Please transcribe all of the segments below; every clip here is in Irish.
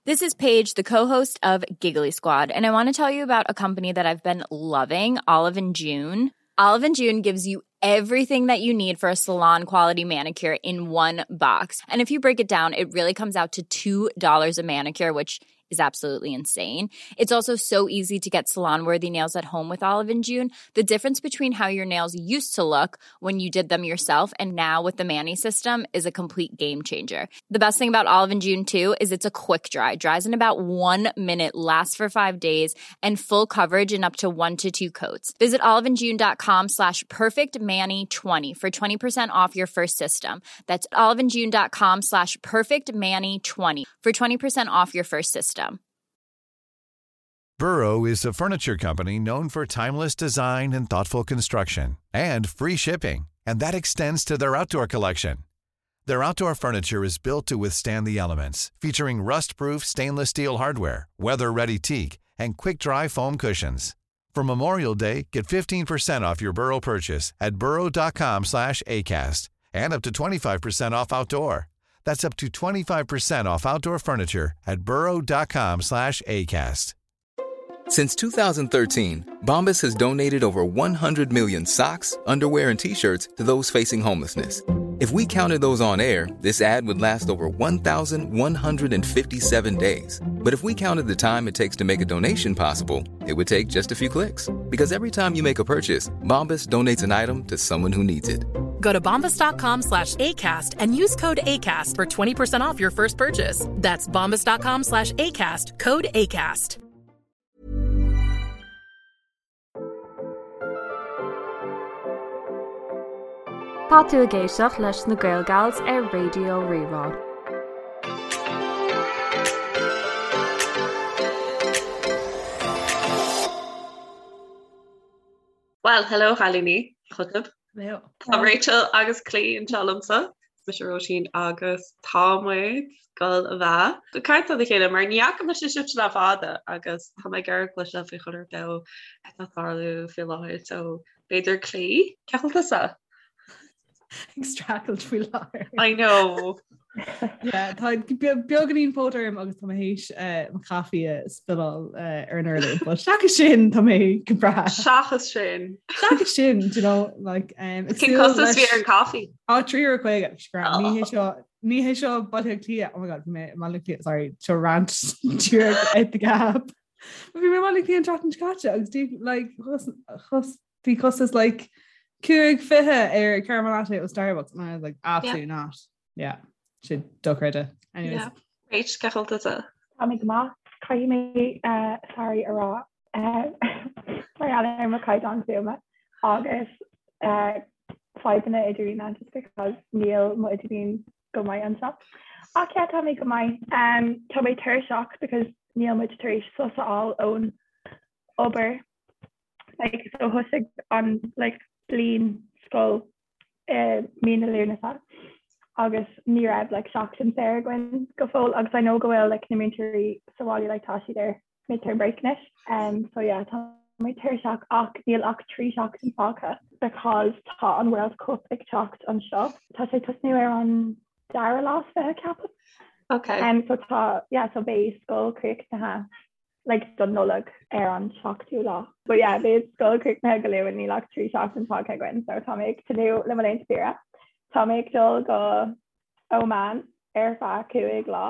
This is Paige, the co-host of Giggly Squad, and I want to tell you about a company that I've been loving, Olive and June. Olive and June gives you everything that you need for a salon quality manicure in one box. And if you break it down, it really comes out to $2 a manicure, which is absolutely insane. It's also so easy to get salon worthy nails at home with Olive and June. The difference between how your nails used to look when you did them yourself and now with the Mani system is a complete game changer. The best thing about Olive and June too is it's a quick dry. Dries in about 1 minute, lasts for 5 days, and full coverage in up to 1 to 2 coats. Visit oliveandjune.com slash perfectmani20 for 20% off your first system. That's oliveandjune.com slash perfectmani20 for 20% off your first system. Burrow is a furniture company known for timeless design and thoughtful construction and free shipping, and that extends to their outdoor collection. Their outdoor furniture is built to withstand the elements, featuring rust-proof stainless steel hardware, weather-ready teak, and quick-dry foam cushions. For Memorial Day, get 15% off your Burrow purchase at burrow.com slash ACAST and up to 25% off outdoor. That's up to 25% off outdoor furniture at burrow.com slash ACAST. Since 2013, Bombas has donated over 100 million socks, underwear, and t-shirts to those facing homelessness. If we counted those on air, this ad would last over 1,157 days. But if we counted the time it takes to make a donation possible, it would take just a few clicks. Because every time you make a purchase, Bombas donates an item to someone who needs it. Go to bombas.com slash ACAST and use code ACAST for 20% off your first purchase. That's bombas.com slash ACAST, code ACAST. Tá tú ag éisteacht leis na Gaelgals ar Raidió Rí-Rá. Well, hello chailíní, chugaibh. Hello. Tá Rachel agus Clí anseo liomsa. Mise Róisín agus tá muid ag dul a bheith ag caint lena chéile mar ní fhaca mise sibhse le fada agus tá mé ag iarraidh cloisteáil faoi chuile rud atá ag tarlú faoi láthair so b'fhéidir Clí, cén chaoi a bhfuil tusa? Ag streachailt faoi láthair. I know. Yeah, tá beagáinín póit orm agus tá mé théis eh, mo chaife a spilleáil eh, ar an urlár, but seachas sin tá mé go breá. Seachas sin. Seachas sin, do you know, like, um, Cén costas a bhí ar an caife? Á €3.50 scrap. Ní hé seo ní hé seo Baile Átha Cliath. Oh my god, bhí mé i Baile Átha Cliath, sorry, seo rant díreach out the gap. Bhí mé i Baile Átha Cliath an tseachtain seo caite agus dí like chos chos bhí costas like 5.20 ar caramel latte ó Starbucks and I was like absolutely yeah. not. Yeah, sin dochreidte. Anyways. Yeah. Rach, cén chaoi a bhfuil tusa? Tá mé go maith. Caithfidh mé uh, sorry a rá uh, mar gheall ar mo chaighdeán fuaime agus uh, fadhbanna idirlín just because níl mo idirlíon go maith anseo. Ach yeah, tá mé go maith. Um, tá mé tuirseach because níl muid tar éis sos a fháil ón obair. Like, so thosaigh an like, bliain scoil i mí na Lúnasa agus ní raibh like, seachtain saor againn go fóill agus I know go bhfuil like, na múinteoirí sa bhaile like, tá siad ar midterm break anois. Um, so yeah, tá mé tuirseach ach níl ach 3 seachtain fágtha because tá an World Cup ag teacht anseo. Tá sé tosnú ar an dara lá is 20 ceapaim. Okay. Um, so tá yeah, so beidh scoil críochnaithe like don Nollaig ar an seachtú lá. But yeah, beidh scoil críochnaithe go luath níl ach 3 seachtain fágtha againn, so tá mé ag tnúth le mo laethanta saoire. Tá mé ag dul go Oman ar feadh 5 lá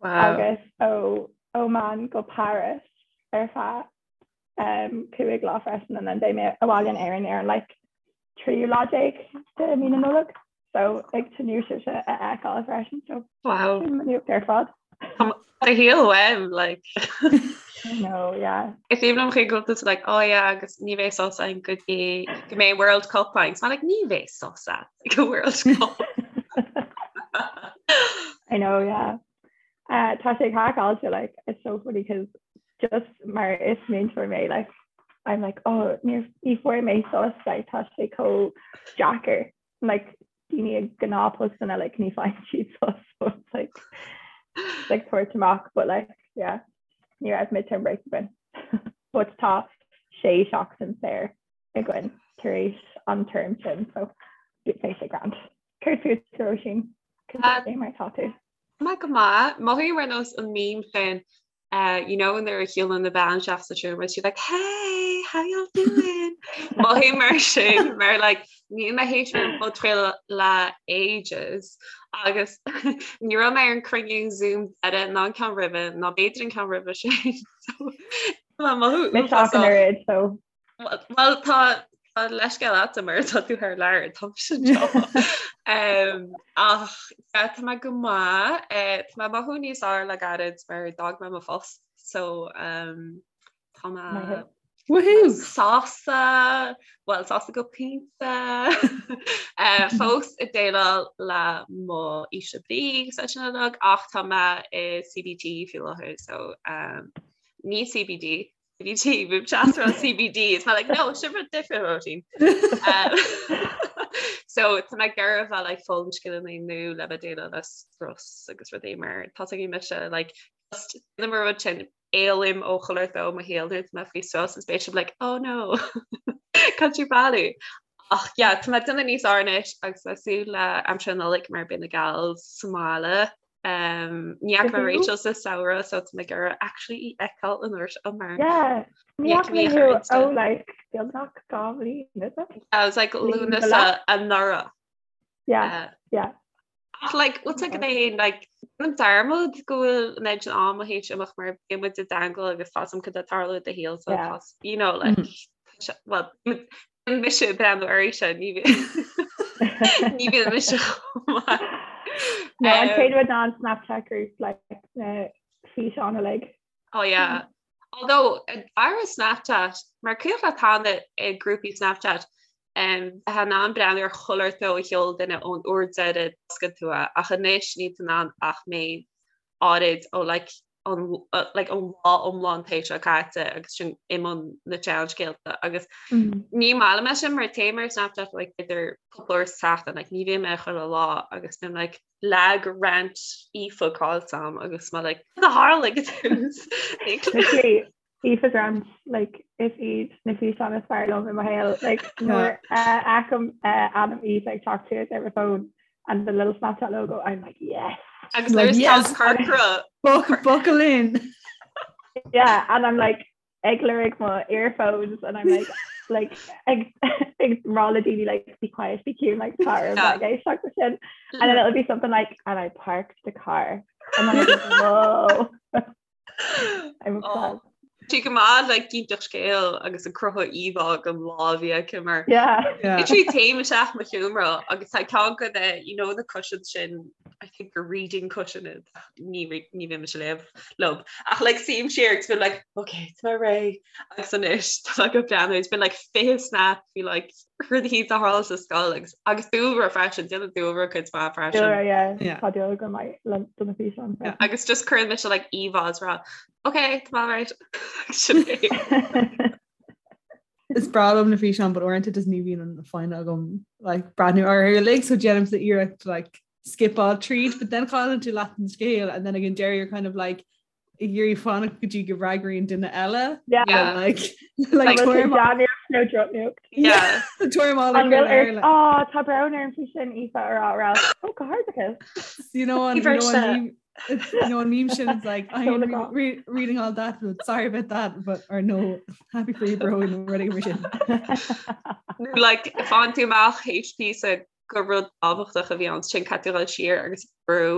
wow. agus ó Oman go Paris ar feadh um, 5 lá freisin and then beidh mé abhaile in Éirinn ar an like tríú lá déag de mí na Nollag. So ag tnúth sibhse a fheiceáil freisin so Wow. sin mo nuacht ar fad. Do shaol uaim, like. No, yeah. Is aoibhinn liom chuig go bhfuil tú like, oh yeah, agus ní bheidh sos againn go dtí go mbeidh World Cup againn. So I'm like, ní bheidh sos agat ag an World Cup. I know, yeah. Uh, tá sé craiceáilte, like, it's so funny because just mar is múinteoir mé, like, I'm like, oh, ní ní fuair mé sos, like, tá sé chomh deacair. Like, daoine ag gnáthphostanna, like, ní faigheann siad sos, so it's like, it's like tabhairt amach, but like, yeah, ní raibh midterm break againn. But tá sé seachtain saor againn tar éis an term sin, so beidh sé grand. Céard fút, Róisín? Cad é mar tá tú? Tá go maith. Mothaím ar nós an meme sin uh, you know nuair a shiúlann na bean isteach sa seomra she's like hey how y'all doing Mothaím mar sin mar like níl mé théis ar an podchraoladh le ages agus ní raibh mé ar an cruinniú Zoom deiridh ná an ceann roimhe ná b'fhéidir an ceann roimhe sin so tá mothú Mise ach an oiread so Well tá tá leithscéal agat mar tá tú thar lear tá sin seo. Um, ach yeah, tá mé go maith eh, tá mé mothú níos fearr le gairid mar d'fhág mé mo phost so um, tá mé Maith. Woohoo! sásta well sásta go pointe eh, fós ag déileáil le mo ísle brí agus é sin uilig ach tá mé i CBT faoi láthair so um, ní CBD CBT bím ag rá CBD is mé like no sin rud difriúil Róisín. Um, so tá mé ag iarraidh bheith like foghlaim scileanna nua le bheith déileáil le strus agus rudaí mar tá ag mise like just na mar rud sin éalaím ó chuile ó mo shaol nuair tá mé faoi strus is beidh like oh no can't you bailí ach yeah tá mé déanamh níos fearr anois agus le súil le aimsir na Nollag mar beidh na gals sa mbaile Um, ní fhaca mé Rachel sa samhradh so tá mé ag iarraidh actually í fheiceáil an uair seo mar Yeah, ní fhaca mé thú ó like beagnach 2 bhliain, is it? I was like Lúnasa anuraidh. Yeah, uh, yeah. Ach like what's like é like an dearmad go bhfuil an méid sin ama théis imeacht mar bíonn muid i dteagmháil agus tá a fhios agam cad atá ag tarlú i do shaol so Yeah. tá you know like mm. well mise ag breathnú uirthi ní ní bhíonn mise chomh maith. No, an chéad rud ná an Snapchat group like na físeáin uilig. Oh yeah. Although ar Snapchat mar cuimhin leat cheana i grúpaí Snapchat um, bheith in ann breathnú ar chuile shórt a sheol duine ón uair deiridh d'oscail tú é ach anois níl tú in ann ach méid áirid ó like an like an lá iomlán théis seo caite agus sin i mbun na seanscéalta agus ní maith liom é sin mar téim ar Snapchat like b'fhéidir cúpla uair sa tseachtain like ní bhím air chuile lá agus bím like lag rant Aoife caillte agam agus mé like cad a tharla ag an tús Literally Aoife's rant like is iad na físeáin is fearr liom i mo shaol like nuair a fheicim ainm Aoife ag teacht suas ar mo phone and the little Snapchat logo I'm like yes Agus like, yes. corcra buckle in yeah and I'm like ag lorg mo earphones and I'm like like ag ag rá le daoine like be quiet be cute like tar yeah. like, sin and then it'll be something like and I parked the car and then I'm like whoa I'm obsessed. Tá go maith le ag inseacht scéal agus ag cruthú íomhá den lá a bhí aici mar Yeah. Yeah. Literally téim isteach mo sheomra agus tá ceann de na you know na cushions sin I think gur reading cushion iad ní re- ní bhím mise léamh leo ach like suím siar agus bím like okay tá mé réidh agus anois tá mé ag breathnú it's been like 20 snap faoi like rudaí a tharla sa scoil agus agus dúlra freisin déanann dúlra cuid mhaith freisin. Dúlra yeah. Yeah. Tá dúlra go maith le do na físeáin freisin. Agus just cuireann mise like íomhá is rá okay tá mé alright Sin é. Is breá liom na físeáin but uaireanta just ní bhíonn an foighne agam like breathnú orthu uilig so déanaimse iarracht like skipáil tríd but then cailleann tú leath an scéal and then again deireadh you're kind of like ag iarraidh fanacht go dtí go bhfreagraíonn duine eile Yeah. Yeah. like like Bhfuil sé tuairim dea-nuacht nó drochnuacht? Yeah. tuairim á An bhfuil le ort oh tá brón orm faoi sin Aoife a rá rá oh go hardachas. you know an you know an meme it's, you know an meme sin it's like I am Seoladh re re reading all that but sorry about that but or no happy for you bro nó rudaí mar sin. Nó like faigheann tú amach théis píosa gur rud tábhachtach a bhí ann sin caithfidh tú dul siar agus brú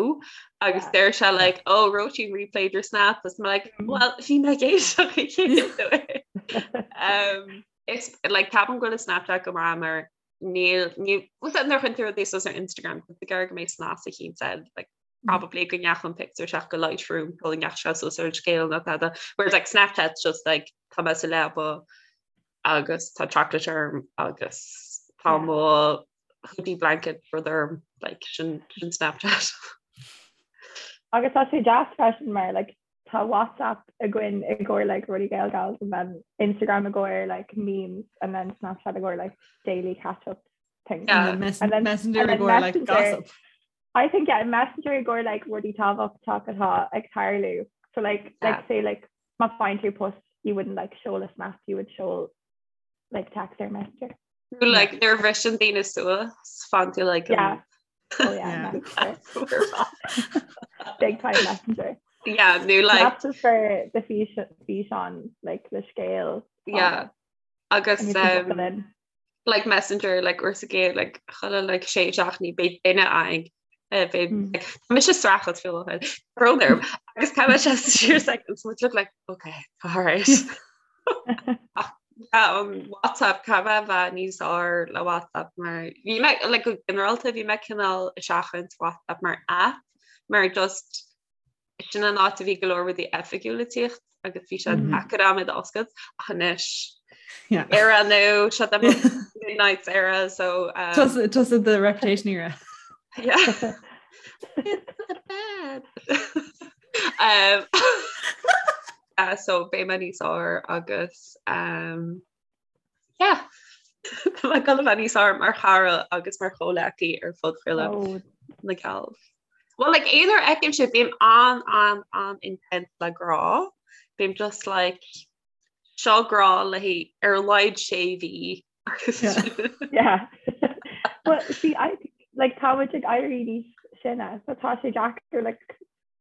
agus Yeah. deir sé like oh Róisín replayed your snap agus mé like well bhí mé ag éisteacht an chéad uair. Um, Is like ceapaim go bhfuil Snapchat go maith mar níl ní bhfuil nuair a chuireann tú rudaí suas ar Instagram tá tú ag iarraidh go mbeidh snas eicínt ann like probably go ndeachaigh an pictiúr isteach go Lightroom go ndeachaigh sé suas ar an scéal nó tada whereas like Snapchat's just like tá mé sa leaba agus tá chocolate orm agus tá mo hoodie blanket rud orm like sin sin Snapchat. Agus tá sé deas freisin mar like tá WhatsApp againn i gcomhair like rudaí Gaelgals and then Instagram i gcomhair like memes and then Snapchat i gcomhair like daily catch up things. Yeah. And then And then- messenger and i then gcomhair like Messenger. gossip. I think yeah, Messenger i gcomhair like rudaí tábhachtach atá ag tarlú. So like Yeah. like say like má faigheann tú post you wouldn't like seoladh snap you would seol like text or Messenger. Nó like nuair a bhriseann daoine suas faigheann tú like Yeah. Oh yeah, Yeah. Messenger. Big time messenger. Yeah, nó like That's just for the físeán like the scéal. Yeah. Agus um, like messenger like uair sa gcéad like chuile like sé seachtainí beidh duine againn eh, beidh mm. like, mise streachailt fiú brón orm agus tá sé siar seconds much look like okay all right Ach, yeah, um, WhatsApp caithfidh mé a bheith níos fearr le WhatsApp mar bhí mé like go ginearálta bhí mé cineál ag seachaint WhatsApp mar app mar just Sin an áit a bhí go leor rudaí oifigiúla ag tíocht agus bhí sé deacair agam iad a oscailt ach anois era nó seo the midnight era so um, Tusa the reputation era. Yeah. It's the bed. um, uh, so beidh mé níos fearr agus um, yeah. Tá mé ag dul a bheith níos fearr mar chara agus mar chomhleacaí ar phodchraoladh oh. na Gals. Well like aon uair a fheicim sibh bím an an an intense le grá. Bím just like seo grá le haghaidh ar a laghad sé mhí. Yeah. Well, see, I like tá muid ag éirí níos sine, so tá sé deacair like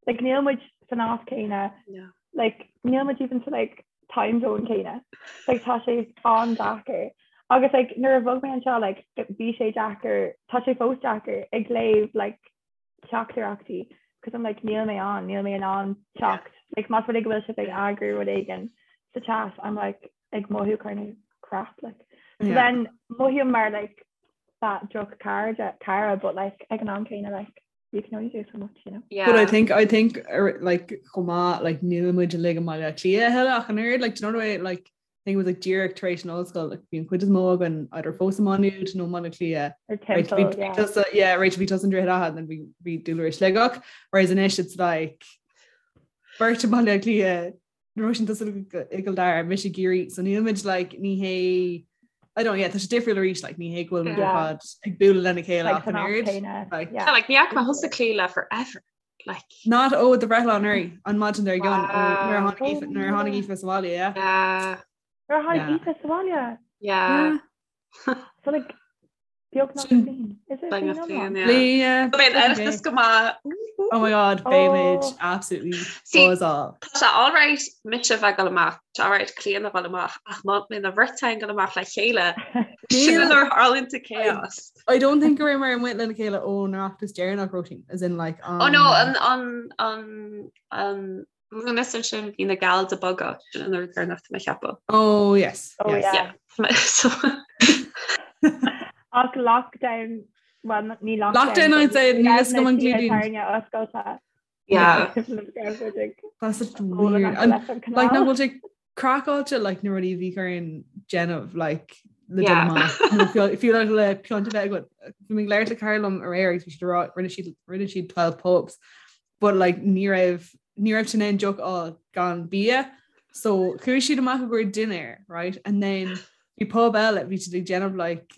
like níl muid san áit céanna like níl muid even sa like time zone céanna like tá sé an-deacair agus like nuair a bhog mé anseo like bhí sé deacair tá sé fós deacair ag léamh like teachtaireachtaí because I'm like níl mé ann níl mé in ann teacht like más rud é go bhfuil sibh ag eagrú rud éigin sa chat I'm like ag mothú kind of crap like so yeah. then mothaím mar like that droch cara cara but like ag an am céanna like you can only do so much, you know. Yeah. But I think I think er, like chomh maith like níl muid uilig i mBaile Átha Cliath a thuilleadh ach an oiread like do you know the way like I think it was like díreach tar éis an ollscoil like bhí an chuid is mó againn either fós i Maigh Nuad nó i mBaile Átha Cliath. Or Temple, right, yeah. Tusa, yeah, Rachel bhí tusa i nDroichead Átha and then bhí bhí Dúlra i Sligeach whereas anois it's like beirt i mBaile Átha Cliath Róisín tusa i gCill Dara mise i gCiarraí so níl muid like ní hé I don't yeah tá sé difriúil arís like ní hé go bhfuil muid ar fad ag bualadh lena chéile ach an oiread like yeah like ní fhaca mé thusa Clíodhna forever like Not ó do bhreithlá anuraidh an maidin dár gcionn ó nuair a tháinig Aoife nuair a tháinig Aoife sa bhaile yeah yeah Nuair a tháinig Aoife sa bhaile yeah so like Beagnach bliain. Is it Beagnach bliain bliain, yeah. Bliain, yeah. Beidh an Oireachtas go maith. Oh my god, beimid absolutely See, buzz-áil. Tá sé alright mise bheith ag dul amach, tá sé alright Clíodhna a dhul amach, ach má bhíonn an bheirt againn ag dul amach le chéile, sin nuair a tharlaíonn an chaos. I don't think go raibh mé amuigh lena chéile ón Oireachtas deireanach, Róisín, as in like Oh no, an, an, an, an Lúnasa sin bhí na gals ag bogadh sin an uair deireanach tá mé ag ceapadh. Oh yes. Oh yes. yeah. Yeah. So Ach lockdown, well ní lockdown. Lockdown I'd say níl a fhios agam an gclúdaíonn. Tairne oscailte. Yeah. That's such weird. And like nach bhfuil sé craiceáilte like na rudaí a bhí orainn déanamh like le dul amach. Fiú like le pionta bheith agat. Bhí mé ag labhairt le cara liom aréir agus bhí siad ag rá rinne siad rinne siad 12 pubs but like ní raibh ní raibh siad in ann deoch a fháil gan bia so chuaigh siad amach i gcomhair dinnéir right and then bhí pub eile bhí siad ag déanamh like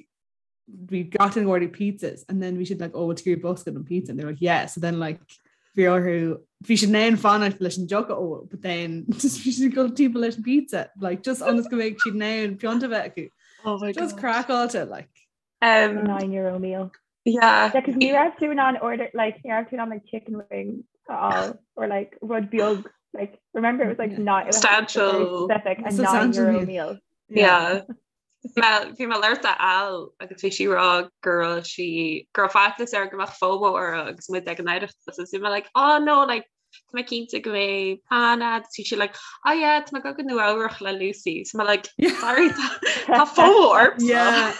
bhí gach duine ag ordú pizzas and then bhí siad like oh bhfuil tú ag iarraidh bosca den pizza and they were like yeah so then like bhí orthu bhí siad in ann fanacht leis an deoch a ól but then just bhí siad ag dul timpeall leis an pizza like just ionas go mbeidh siad in ann pionta bheith acu Oh my just God. craiceáilte like Um, €9 meal. yeah. Yeah, 'cause ní raibh tú in ann order like ní raibh tú in ann like chicken wings a fháil or like rud beag like remember it was like not it was very Substantial. specific a Substantial €9 meal. meal. Yeah. Bhí mé ag labhairt le Al agus bhí sí ag rá go raibh sí go raibh faitíos uirthi go mbeadh FOMO uirthi agus muid ag an Oireachtas agus bhí mé like oh no like tá mé cinnte go mbeidh plean agat bhí sí like oh yeah tá mé ag dul go Nua Eabhrach le Lucy so mé like sorry tá FOMO ormsa. Yeah.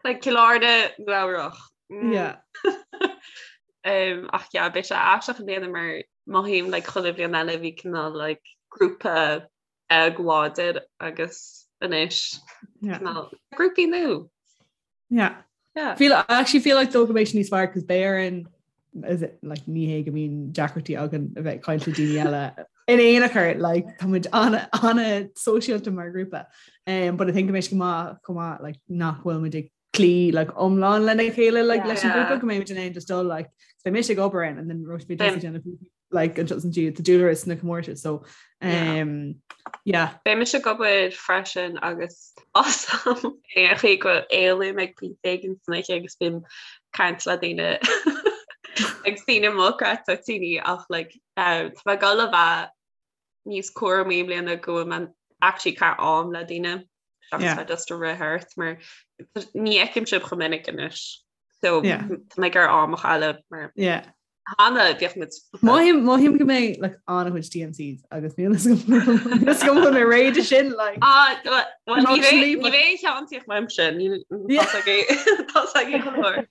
Like Cill Airne Nua Eabhrach. Mm. Yeah. Um, ach yeah, beidh sé aisteach i mbliana mar mothaím like chuile bhliain eile bhí cineál like grúpa beag láidir agus anois Yeah. cineál grúpaí nua. Yeah. Yeah. Feel, I actually feel like though go mbeidh sé níos fearr cos beidh orainn is it, like ní hé go mbíonn deacrachtaí againn a bheith ag caint le daoine eile in aon chor like tá muid ana ana sóisialta mar grúpa um, but I think go mbeidh sé go maith chomh maith like nach bhfuil muid ag cloí like iomlán lena chéile like leis an Yeah. grúpa go mbeidh muid in ann just dul like so beidh mise ag obair ann and then Róisín beidh tusa ag déanamh like an just an tá Dúlra sna comórtais so um, yeah. Beidh mise ag obair freisin agus awesome aon chaoi go éalaím ag pointe éigin san oíche agus bím ag caint le daoine. Ag síneadh mo chreat toitíní ach like tá mé ag dul a bheith níos cúramaí i mbliana go bhfuil mé actually ag caitheamh am le daoine seachas bheith just ag rith thart mar ní fheicim sibh chomh minic anois. So tá mé ag iarraidh am a chailleadh mar cheana bhíodh muid Mothaím mothaím go mbeidh like an-chuid TMCs agus níl a fhios agam an bhfuil mé réidh de sin like. Ah, well, ní bheidh ní bheidh aon cheann uaimse níl tá ag go leor.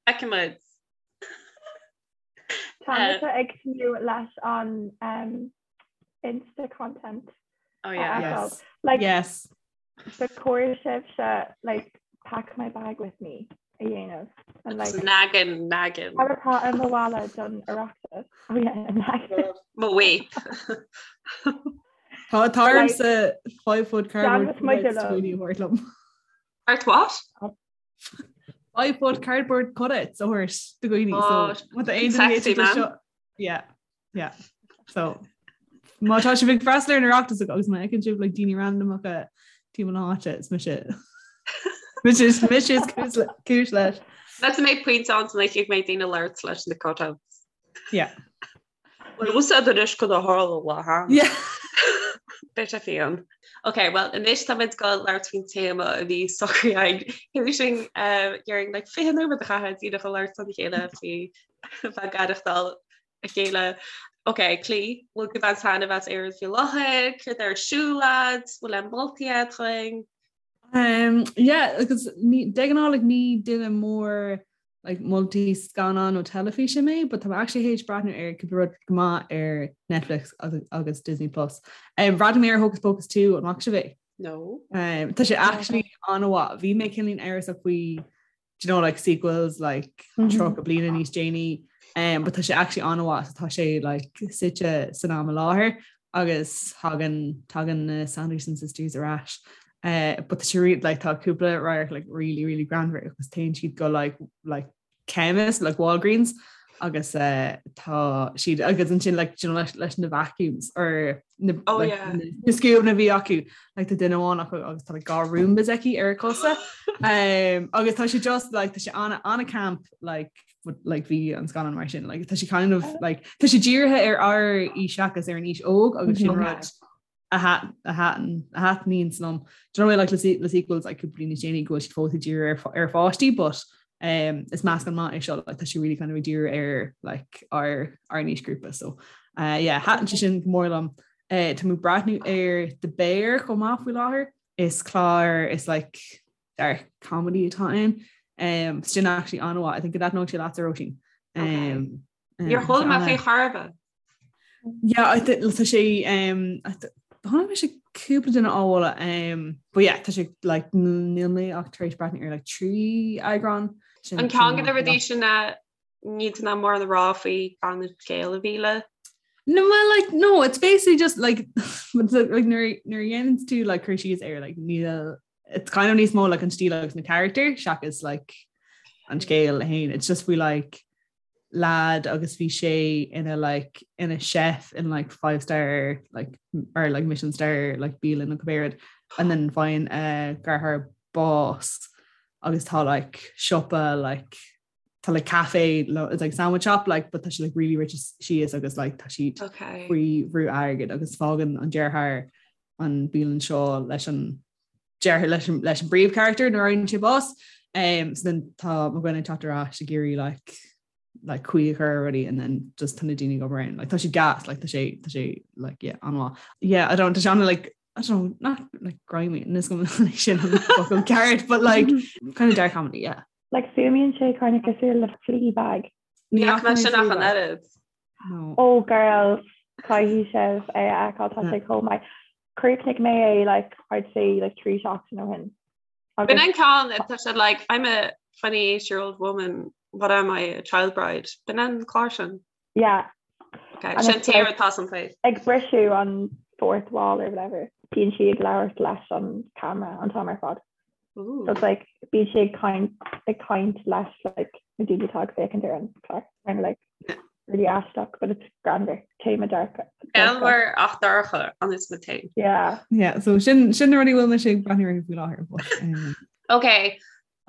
Feicfimid. Tá mise ag tnúth leis an um, Insta content. Oh yeah. Yes. Like, yes. Ba chóir sibhse like pack my bag with me a dhéanamh and like Naggin naggin. Cad atá i mo mhála don Oireachtas? Oh yeah, naggin. Mo vape. Tá tá ormsa 5 foot cardboard Déanfaidh muid cutouts liom. daoine a thabhairt liom. Art what? 5 foot cardboard cutouts a thabhairt do dhaoine Oh, so má tá aon duine sexy, éisteacht leis man. seo- Yeah, yeah. So má tá sibh ag freastal ar an Oireachtas agus má fheiceann sibh like daoine randamacha timpeall na háite is mise mise is mise is cúis le- cúis leis. Let's make points on like ag mé daoine labhairt leis na cutouts. Yeah. Well úsáid anois go a tharla le ha. Yeah. Beidh sé fiáin. Ok, well anois táimid ag dul labhairt faoin téama a bhí socraithe againn. Sin dhéarfainn like 20 nóiméad a chaitheamh díreach ag labhairt lena chéile faoi bheith ag aireachtáil a chéile. Ok, Clí, bhfuil tú ag baint taitneamh as Éirinn faoi láthair, céard ar siúl agat, bhfuil aon moltaí agat dúinn? Um, yeah, agus ní, de ghnáth like, ní duine mór like, moltaí scannán nó teilifíse mé, but tá mé actually théis breathnú ar cúpla rud go maith ar Netflix agus, agus Disney Plus. Um, bhreathnaigh mé ar Hocus Pocus 2 an bhfaca sibh é? No. Um, tá sé actually an-mhaith. Bhí mé cineáilín amhrasach faoi do you know, like sequels like mm -hmm. 30 bliana níos déanaí um, but tá sé actually an-mhaith so tá sé like suite san am i láthair agus thagann tagann na Sanderson sisters ar ais. Uh, but tá sé re like tá cúpla radharc like really really greannmhar agus téann siad go like like chemist like Walgreens agus uh, tá siad agus ansin like you know, leis, leis na vacuums or na, oh, like, yeah. na, na scuab a bhí acu like, tá duine amháin acu agus tá like, dhá Roombas aici ar a cosa um, agus tá sé just like, tá sé ana ana camp like, but, like bhí an scannán mar sin like, tá sé kind of like, tá sé dírithe ar ár aois seachas ar an aois óg agus sin Okay. rud a thaitníonn liom. Do you know like le le sequels like cúpla bliain níos déanaí go bhfuil siad fós ag díriú ar ar pháistí but um, is meascán maith é seo like, tá sé really kind of ag díriú ar like ár ár n-aoisghrúpa so uh, yeah thaitin sé sin go mór liom. Uh, tá mé ag breathnú ar The Bear chomh maith faoi láthair. Is clár is like dark comedy atá ann. Um, sin actually an-mhaith. I think go dtaitneodh sé leatsa Róisín. Um, Níor chuala mé faoi chor ar bith. Yeah, I think tá sé um, chonaic mise cúpla duine á mholadh um, but yeah, tá sé like níl mé ach tar éis breathnú ar like 3 eagrán. Sin An ceann de na rudaí sin a ní ná mórán a rá faoi gan an scéal a mhilleadh. No, well, like, no, it's basically just like, but the, like nuair nuair a dhéanann tú like cur síos air like níl it's kind of níos mó like an stíl agus na character seachas like an scéal féin. It's just faoi like lad agus bhí sé ina like ina chef in like five star like or like Michelin star like bialann nó cibé rud and then faigheann a dheartháir bás agus tá like siopa like tá like cafe it's like sandwich shop like but tá sé like really rite síos agus like tá siad okay. faoi bhrú airgid agus fágann an deartháir an bialann seo leis an deartháir leis an leis an bpríomhcharachtar nuair a fhaigheann sé bás. Um, so then tá mo dhuine ag teacht ar ais ag iarraidh like like caoi a chur ar rudaí and then just tá na daoine ag obair ann. Like tá sé gas, like tá sé tá sé like yeah an-mhaith. Yeah, I don't tá sé an like I don't know, not like grimy níl a fhios agam sin an focal ceart, but like kind of dark comedy, yeah. Like fuaimníonn sé kind of cosúil le Fleabag. Ní fhaca mé sin ach an oiread. No. Oh girls, caithfidh sibh é a fheiceáil tá sé chomh maith. Chríochnaigh mé é like I'd say like 3 seachtain ó shin. B'in an ceann tá sé like I'm a 28 year old woman, what am I, a child bride? B'in an clár sin. Yeah. Okay, And sin it's tír like- atá san faoi. Ag briseadh an fourth wall or whatever. Bíonn sí ag labhairt leis an camera an t-am ar fad. Ooh. So it's like bíonn sí ag caint ag caint leis like na daoine atá ag féachaint ar an chlár. Kind of like really aisteach, but it's greannmhar. Téama dorcha. Greannmhar ach dorcha an is na té. Yeah. Yeah, so sin sin na rudaí a bhfuil mise ag breathnú orthu faoi láthair. But, um, Okay.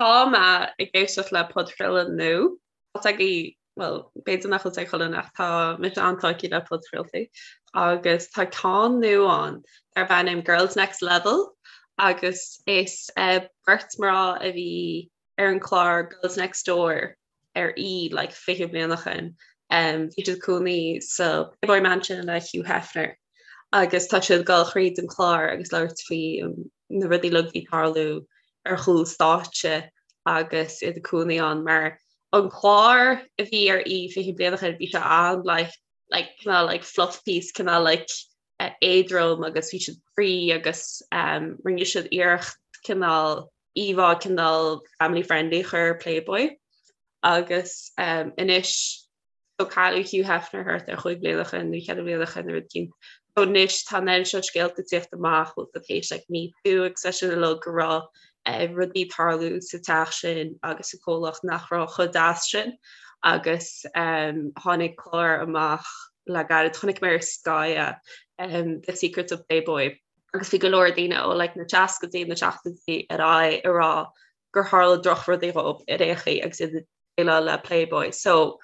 Tá mé ag éisteacht le podchraoladh nua. Tá agaibh, bhuel, b'fhéidir nach bhfuil sé ag chuile dhuine ach tá mise an-tógtha le podchraoltaí agus tá ceann nua ann darb ainm Girls Next Level agus is beirt mná a bhí ar an chlár Girls Next Door ar E like 20 bliain ó shin. Bhí siad cónaí sa Playboy Mansion le Hugh Hefner agus tá siad ag dul thríd an chlár agus labhairt faoi na rudaí uilig a bhí ag tarlú ar chúl stáitse agus iad ag cónaí ann mar an clár a bhí ar E 20 bliain ó shin bhí sé an like like cineál like fluff piece cineál like éadrom agus bhí siad free agus um, rinne siad iarracht cineál íomhá cineál family friendly a chur ar Playboy agus um, anois so cailleadh Hugh Hefner thart ar chúig bliana ó shin nó cheithre bliana ó shin nó rud éicint. So anois tá an oiread seo scéalta ag tíocht amach bhfuil tar éis like Me Too agus é sin uilig go raibh eh, rudaí ag tarlú sa teach sin agus sa comhlacht nach raibh chomh deas sin agus um, tháinig clár amach le gairid chonaic mé ar Sky é, um, The Secrets of Playboy agus bhí go leor daoine ó like, na seascaidí na seachtóidí ar aghaidh ag rá gur tharla drochrudaí dhóibh ar aon chaoi agus iad ag déileáil le Playboy. So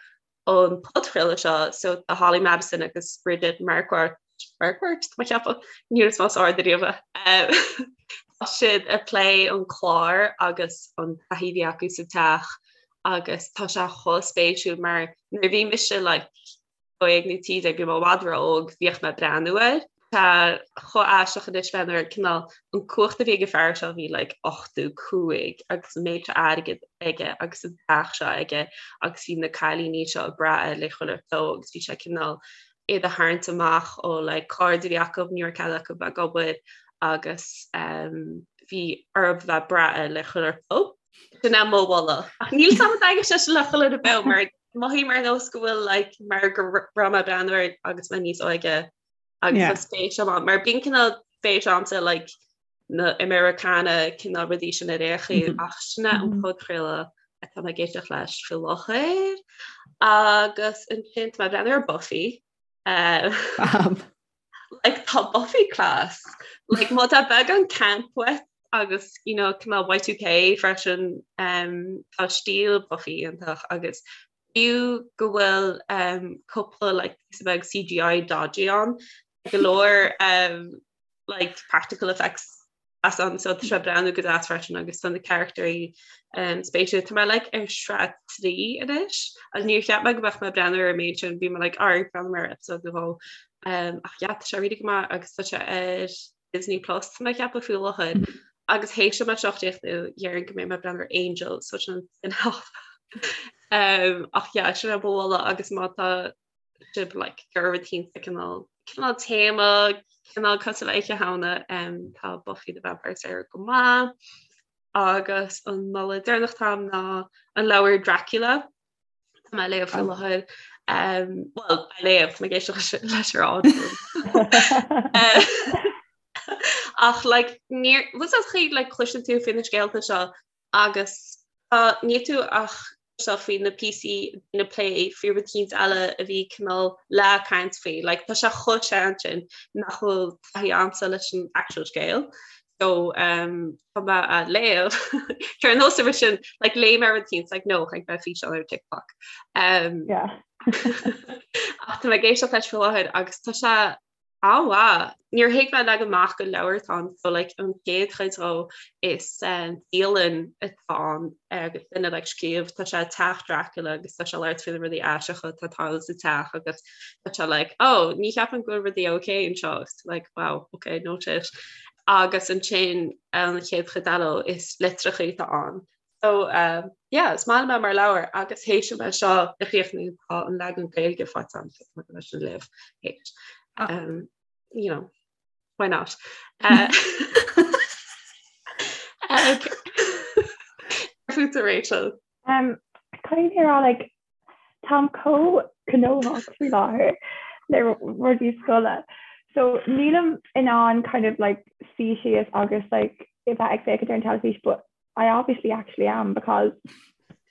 an podchraoladh seo so tá Holly Madison agus Bridget Marquardt Marquardt tá mé ag ceapadh níor is más ard ariamh é. Tá siad ag plé an clár agus an taithí a bhí acu sa teach agus tá sé chomh spéisiúil mar nuair a bhí mise like 12 nó 13, bhí mé i bhfad ró-óg, bhíodh mé ag breathnú air. Tá chomh aisteach anois bheith nuair cineál an cumhacht a bhí ag an fear seo bhí like 85 agus an méid seo airgid aige agus an teach seo aige agus bhí na cailíní seo ag brath air le chuile shórt agus bhí sé cineál iad a tharraingt amach ó like cairde a bhí acu ní raibh cead acu bheith ag obair agus um, bhí orthu bheith ag brath air le chuile shórt. Sin é mo mholadh. Ach níl 's agam an dtaitneoidh sé sin le chuile dhuine beo mar Mothaím ar nós go bhfuil like, mar go raibh mé ag breathnú air agus mé níos óige agus yeah. spéis agam mar bíonn cineál spéis agamsa like, na Americana cineál rudaí sin ar aon chaoi mm -hmm. ach sin é an mm-hmm. podchraoladh atá mé ag éisteacht leis faoi láthair agus ansin tá mé ag breathnú ar Buffy. Uh, like tá Buffy class like má tá beagán camp uait agus you know cineál Y2K freisin um, tá stíl Buffy iontach agus fiú go bhfuil um, cúpla like píosa beag CGI dodgy ann go leor um, like practical effects as ann so tá sé breathnú go deas freisin agus tá na carachtarí um, spéisiúil. Tá mé like ar sraith 3 anois agus níor cheap mé go mbeadh mé ag breathnú ar an méid sin bhí mé like ag breathnú ar episode nó dhó um, ach yeah, tá sé really go maith agus tá sé ar Disney Plus tá mé ag ceapadh faoi láthair mm. agus théis dom é seo a chríochnú déarfainn go mbeidh mé ag breathnú ar Angel so sin spin-off. um, ach yeah, sin é mo mholadh agus má tá sibh like gur rud éicint cineál cineál téama cineál cosúil le Oíche Shamhna um, tá Buffy the Vampire Slayer go maith agus an moladh deireanach atá agam ná an leabhar Dracula Tá mé á léamh faoi láthair um, well á léamh tá mé ag éisteacht leis ar ád ach like níor was that chaoi like cloiseann tú faoi na scéalta seo agus tá níl tú ach seo faoi na píosaí na plé faoi rud éicint eile a bhí cineál le caint faoi. Like, tá sé chomh sean sin nach bhfuil taithí agamsa leis an actual scéal. So um, tá mé á léamh Ar nós a sin like, léigh mé rud éicint like, no, chonaic mé físeán ar TikTok. Um, yeah. ach tá mé ag éisteacht leis faoi láthair agus tá sé An-mhaith. Níor thuig mé leagan amach gur leabhar atá ann so like an chéad chuid dhó is dialann atá ann agus duine like scríobh tá sé teach Dracula agus tá sé labhairt faoi na rudaí aisteacha atá ag tarlú sa teach agus tá sé like oh ní cheapaim go bhfuil rudaí okay anseo agus tú like wow okay no shit. Agus ansin an chéad chuid eile is litreacha atá ann. So um, yeah, is maith liom é mar leabhar agus théis dom é seo a chríochnú tá an leagan Gaeilge faighte agam so tá leis an léamh théis. Ah. Um, you know, why not? Uh, okay. Fútsa Rachel. Um, Caithfidh mé rá like, táim chomh gnóthach faoi láthair le rudaí scoile. So nílim in ann kind of like suí síos agus like bheith ag féachaint ar an teilifís, but I obviously actually am because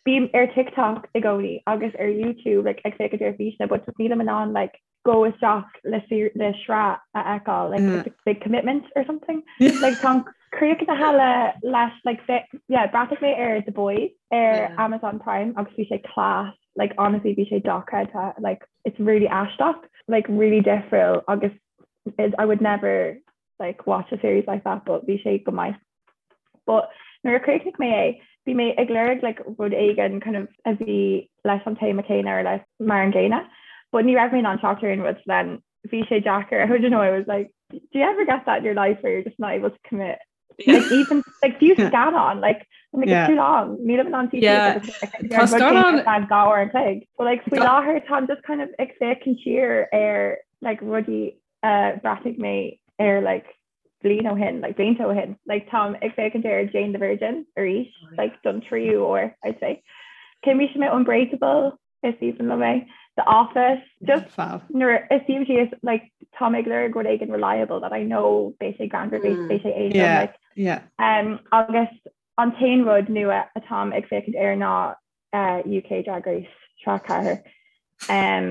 bím ar TikTok i gcónaí agus ar YouTube like, ag féachaint ar físeanna, but just nílim in ann like go isteach le le sraith a fheiceáil like mm. it's a big commitment or something like tá Críochnaithe le leis like yeah bhreathnaigh mé ar The Boys ar yeah. Amazon Prime agus bhí sé class like honestly bhí sé dochreidte like it's really aisteach like really difriúil agus it, I would never like watch a series like that but bhí sé go maith. But nuair a chríochnaigh mé é bhí mé ag lorg like rud éigin kind of a bhí leis an téama céanna or like mar an gcéanna but ní raibh mé in ann teacht ar aon rud then bhí sé deacair I don't know I was like do you ever get that in your life where you're just not able to commit yeah. like even like fiú scannán like I'm like, yeah. it's too long nílim in ann yeah. Tá scannán dhá uair an chloig but like faoi láthair táim just kind of ag féachaint siar ar like rudaí uh, bhreathnaigh mé ar like bliain ó shin like blianta ó shin like táim ag féachaint ar Jane the Virgin arís oh, yeah. like don tríú uair I'd say Chímse mé Unbreakable is aoibhinn liom é The Office just Fab. nuair a suím síos like tá mé ag lorg rud éigin reliable that I know beidh sé greannmhar beidh beidh sé éadrom Yeah, like yeah. um, agus an t-aon rud nua atáim ag féachaint air ná uh, UK Drag Race sraith 4 um,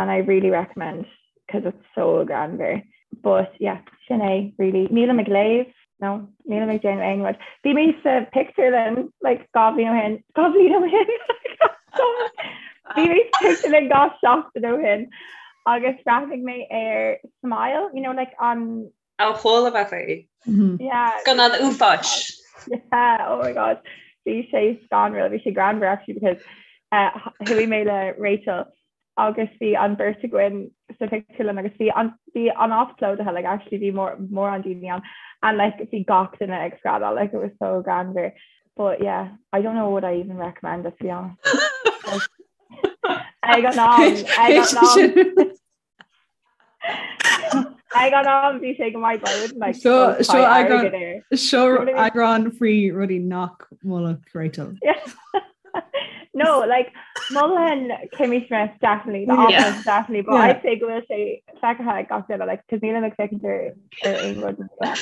and I really recommend because it's so greannmhar but yeah sin é really nílim ag léamh no nílim ag déanamh aon rud bhí mé sa pictiúrlann like 2 bhliain ó shin 2 bhliain ó shin bhí mé sa pictiúrlann 2 seachtain ó shin agus bhreathnaigh mé ar Smile you know like an Ó chuala mé faoi. yeah Scannán uafáis. Yeah, oh my god. Bhí sé scanrúil, bhí sé greannmhar actually because uh, chuaigh mé le Rachel agus bhí an beirt againn sa pictiúrlann agus bhí an bhí an áit plódaithe like actually bhí mór mórán daoine ann and like bhí gach duine ag screadaíl like it was so greannmhar but yeah I don't know what I even recommend it to be honest. Ag an am ag an am ag an am bhí sé go maith but I wouldn't like Seo go seo buy eagrán airgead air. seo You know what I mean? eagrán faoi rudaí nach molfadh Rachel. Yeah. No, like mholfainn Kimmy Smith definitely, The Yeah. Office definitely, but Yeah. I'd say go bhfuil sé feicthe ag gach duine like cos nílim ag féachaint ar ar aon rud nua.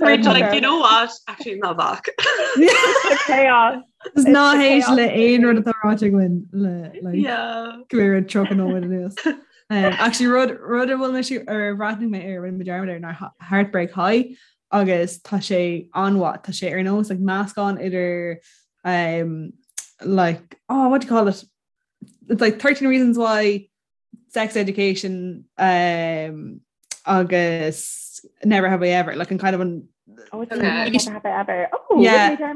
So Rachel, like, it's you know what? Actually, ná bac. the chaos. Is It's ná the héist chaos. le aon rud atá ráite againn le like Yeah. go raibh 30 nóiméad anuas. Um, actually rud rud a bhfuil mé ar bhreathnaigh mé ar rinne mé dearmad air ná Heartbreak High agus tá sé an-mhaith tá sé ar nós like meascán idir um, like oh what do you call it it's like 13 reasons why sex education um, agus never have I ever like an kind of an Oh, it's Okay. Never Have I Ever. Oh, Yeah. yeah.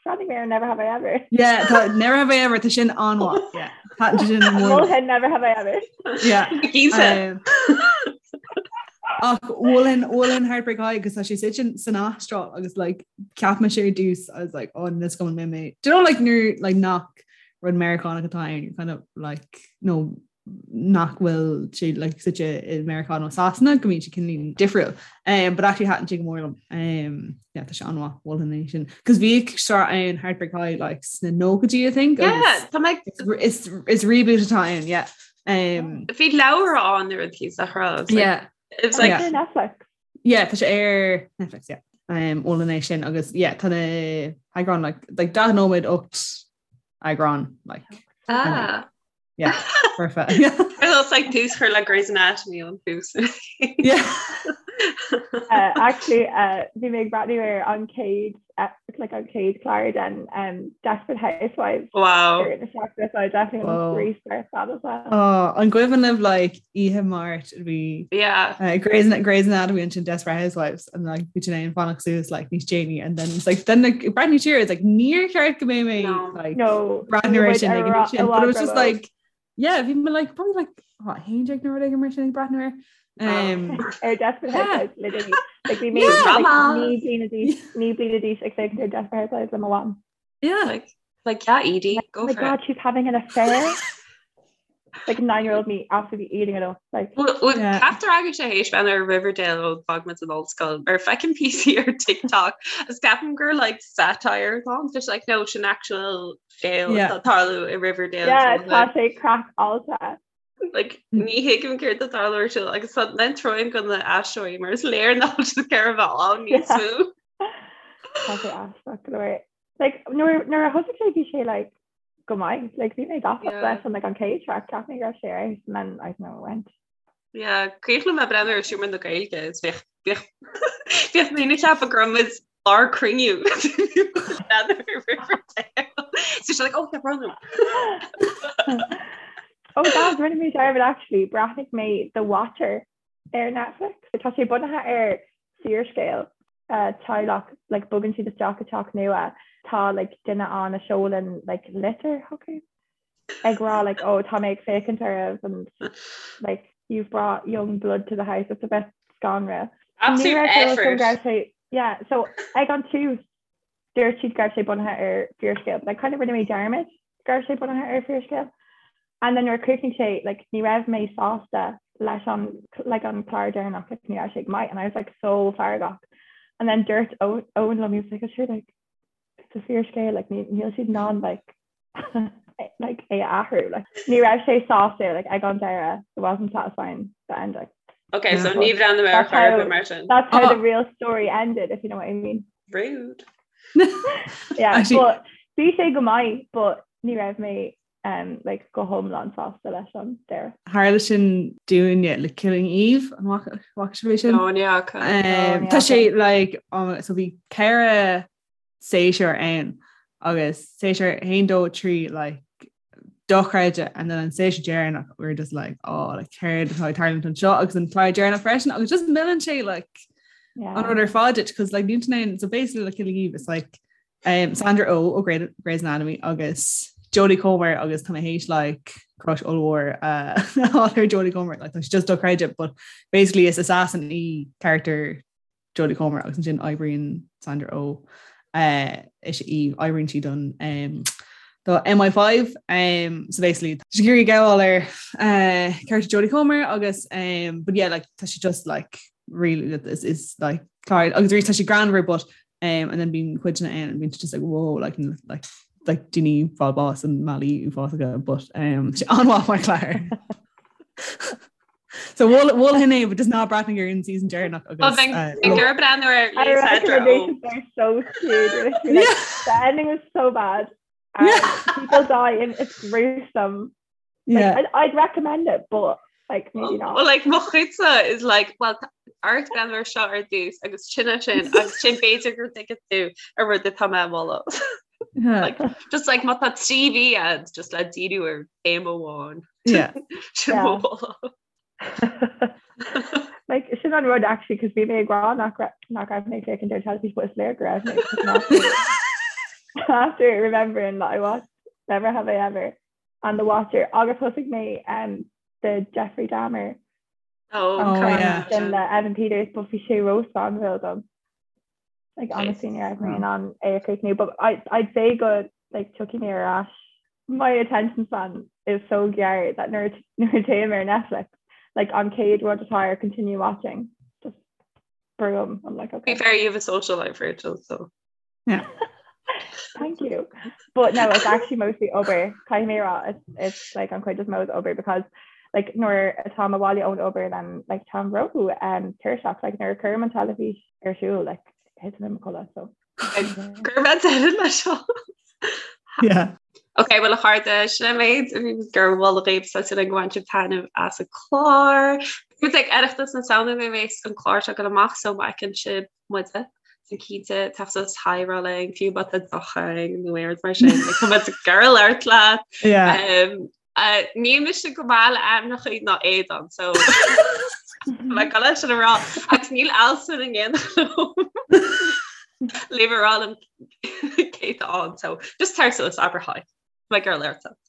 Bhreathnaigh mé ar Never Have I Ever. yeah tá, never have I ever tá sin an-mhaith yeah tá sin mór Mholfainn Never Have I Ever. yeah Gísa. Um, ach mholfainn mholfainn Heartbreak High agus tá sé suite san Astráil agus like cheap mise ar dtús I was like oh this going mé mé do you know like nuair like nach rud Meiriceánach atá ann you're kind of like no nach bhfuil sé like suite i Meiriceá nó Sasana go mbíonn sé cineál difriúil um, but actually thaitin sé go mór liom um, yeah, tá sé an-mhaith mholfainn é sin cos bhíodh sraith ann Heartbreak High like sna nóchaidí I think Yeah, agus tá mé is is reboot atá ann yeah um, Bhí leabhar ann ar an tíos a rá. It's like, yeah it's like Yeah. Ar Netflix. Yeah, tá sé ar Netflix, yeah. Um, mholfainn é sin agus yeah, tá na heagráin like, like 40 nóiméad 8 eagrán like, ah. yeah, perfect. Yeah. It's like tús chur le Grey's Anatomy an tús. yeah. Uh, actually, uh, bhí mé ag breathnú ar an chéad uh, like an chéad chlár den um, Desperate Housewives. Wow. ar na seachtaine, so I definitely Whoa. want to restart that as well. Oh, an cuimhin libh like oíche Máirt bhí Yeah. uh, Grey's, Grey's Anatomy and Desperate Housewives and like bhí sin fanacht suas like níos déanaí and then it's like then like breathnú siar it's like níor cheart go mbeidh mé No. like No, breathnú ar muid sin ar ag an ra- sin but it was just i bhfad like yeah bhí mé like probably like what haon déag nó rud éigin mar sin ag breathnú air um, ar Desperate Yeah. Housewives literally. Like bhí mé Yeah. like, Drama. naoi bliana d'aois naoi bliana d'aois ag féachaint ar Desperate Housewives le mo mham. yeah Like, like yeah, Edie, Oh go my for god, it. she's having an affair. Like nine-year-old me absolutely eating it up. Like Well, well, Yeah. Ceaptar agus sé héis bheith ar Riverdale ó d'fhág muid an ollscoil ar feicim píosaí ar TikTok is ceapaim gur like satire atá ann, Tá like no sin actual scéal Yeah. atá ag tarlú i Riverdale yeah, so, tá sé craiceáilte. like ní thuigim céard atá ag tarlú ar siúl agus tá troim go na aisteoirí mar is léir nach bhfuil siad ar a bheith ann níos Yeah. mó. Tá sé aisteach go leor. Like nuair nuair a thosaigh sé bhí sé like go maith. Like bhí mé gafa Yeah. leis an like an chéad sraith cheap mé go raibh sé ar fheabhas, and then I don't know it went. Yeah, cuimhin liom breathnú ar Seomra na Gaeilge is bheadh bheadh Bhíodh daoine ag ceapadh go raibh muid ár cruinniú. So she's like, oh, tá brón orm. Oh, gals, rinne mé dearmad actually, bhreathnaigh mé The Watcher ar Netflix. Tá sé bunaithe ar fíorscéal uh, teaghlach, like, bogann siad isteach i teach nua, tá like, duine ann a seolann like, litir chucu ag rá like, oh, tá mé ag féachaint oraibh and like, you've brought young blood to the house. It's a bit scanrúil. Absolute effort. Yeah, so ag an tús dúirt siad go raibh sé bunaithe ar fíorscéal, but like kind of rinne mé dearmad go raibh sé bunaithe ar fíorscéal. And then nuair a chríochnaigh sé, like ní raibh mé sásta leis an like an clár deireanach, like ní raibh sé go maith and I was like so feargach. And then dúirt Owen liom, he was like, oh, sure, like it's a fíorscéal, like níl siad in ann like like é a athrú like ní raibh sé sásta like ag an deireadh it wasn't satisfying the ending. Okay, so ní bhreathnóidh mé ar chor ar bith mar sin. That's how the real story ended if you know what I mean. Rude. Yeah, Actually, but bhí sé go maith but ní raibh mé um, like, go hiomlán sásta leis an deireadh. Tharla sin dúinne le Killing Eve an bhfaca sibh é sin? No, ní fhaca. Um, tá sé like um, so bhí ceithre séasúr ann agus séasúr 1 2 3 like dochreidte and then an séasúr deireanach we were just like oh like céard atá ag tarlúint anseo agus an clár deireanach freisin agus just milleann sé like yeah. an rud ar fad duit because like níl ann so basically like Killing Eve it's like um, Sandra Oh ó Grey, Grey's Anatomy agus Jodie Comer agus tá mé théis like crush ollmhór uh, ar Jodie Comer like tá sé just dochreidte but basically is assassin í character Jodie Comer agus ansin oibríonn Sandra Oh uh, is í oibríonn sí don um, do MI5 um, so basically tá sí ag iarraidh gabháil ar uh, character Jodie Comer agus um, but yeah like tá sí just like really is, is like clár agus arís tá sí greannmhar but um, and then bíonn cuideanna ann and bíonn just like whoa like like like daoine ag fáil bás i mbealaí uafásacha but um, sé an-mhaith mar chlár. So mholfainn é but just ná breathnaigh ar an season deireanach agus gur breathnú ar Recommendations are so cute. Like, the ending was so bad. And people die and it's gruesome. Like, yeah. I'd, I'd recommend it, but like maybe not. Well, like mo chuidse is like well ort breathnú air seo ar dtús agus sin sin agus sin b'fhéidir go dtuigfidh tú an rud atá mé a mholadh. Like, just like má tá 3 mhí agat just le díriú ar théama amháin. Yeah. Sin mo mholadh. Like sin an rud actually cos bhí mé ag rá nach nach raibh mé ag féachaint ar teilifís but is léir go raibh mé after remembering that I watched Never Have I Ever and The Watcher agus thosaigh mé um, the Jeffrey Dahmer Oh, oh yeah. sin le Evan Peters but bhí sé ró-scanrúil dom. Like honestly ní raibh mé in ann é a chríochnú but I, I'd say go like tiocfaidh mé ar ais. My attention span is so gearr that nuair nuair a théim ar Netflix like an chéad rud atá ar continue watching just brúim I'm like okay. Be fair, you have a social life, Rachel, so. Yeah. Thank you. But no, it's actually mostly obair. Caithfidh mé a rá, it's, it's like an chuid is mó is obair because like nuair atáim abhaile ón obair then like táim ró um, tuirseach like nuair a chuirim an teilifís ar siúl like thiteann mé i mo chodladh so. Gur bheith deireadh leis seo. Yeah. Ok, well a chairde, sin an méid a bhí gur mholadh dhaoibh tá súil agam gur bhain sibh taitneamh as an clár. Muid ag Oireachtas na Samhna nuair a bheas an clár seo ag dul amach so má fheiceann sibh muide so cinnte tabhair suas hi a rá linn fiú má tá deoch againn nó aon rud mar sin like, tá muid ag iarraidh labhairt leat. Yeah. Um, uh, níl mise go maith le ainmneacha ná éadan so le go leis sin a rá agus níl Alison in éineacht liom. Le a rá liom cé atá ann so just tar suas abair hi. Tá ag iarraidh labhairt leat.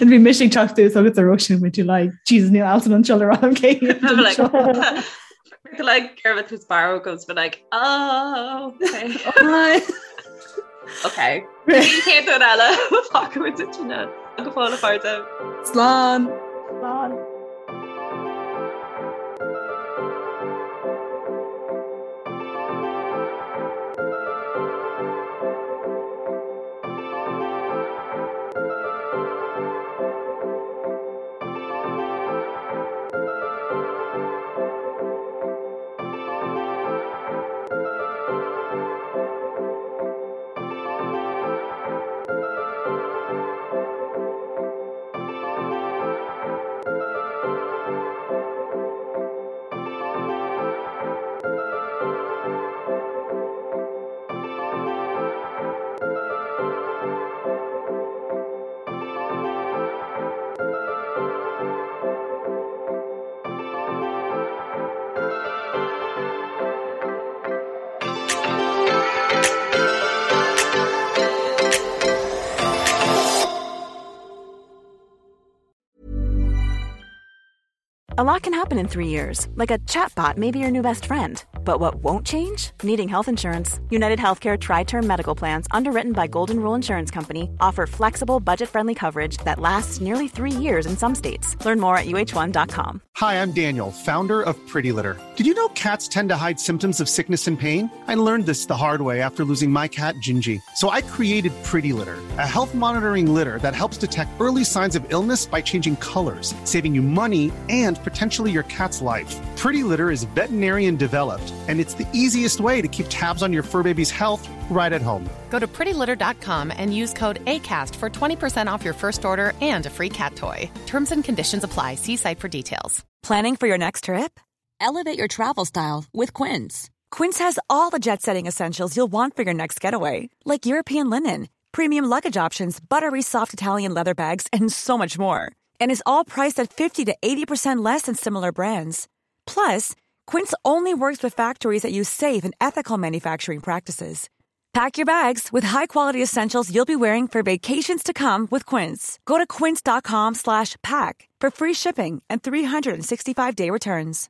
And bhí mise ag teacht suas agus a Róisín with you like Jesus níl Alison anseo le rá liom cé like like Gervit who's barrow goes but like oh okay Hi. okay Cé eile fágfaimid ansin é. Go fóill a chairde. Slán. Slán. A lot can happen in 3 years, like a chatbot may be your new best friend. But what won't change? Needing health insurance. United Healthcare Tri Term Medical Plans, underwritten by Golden Rule Insurance Company, offer flexible, budget friendly coverage that lasts nearly 3 years in some states. Learn more at uh1.com. Hi, I'm Daniel, founder of Pretty Litter. Did you know cats tend to hide symptoms of sickness and pain? I learned this the hard way after losing my cat, Gingy. So I created Pretty Litter, a health monitoring litter that helps detect early signs of illness by changing colors, saving you money and potentially your cat's life. Pretty Litter is veterinarian developed, and it's the easiest way to keep tabs on your fur baby's health right at home. Go to prettylitter.com and use code ACAST for 20% off your first order and a free cat toy. Terms and conditions apply. See site for details. Planning for your next trip? Elevate your travel style with Quince. Quince has all the jet setting essentials you'll want for your next getaway, like European linen, premium luggage options, buttery soft Italian leather bags, and so much more. And is all priced at 50 to 80% less than similar brands. Plus, Quince only works with factories that use safe and ethical manufacturing practices. Pack your bags with high-quality essentials you'll be wearing for vacations to come with Quince. Go to quince.com slash pack for free shipping and 365-day returns.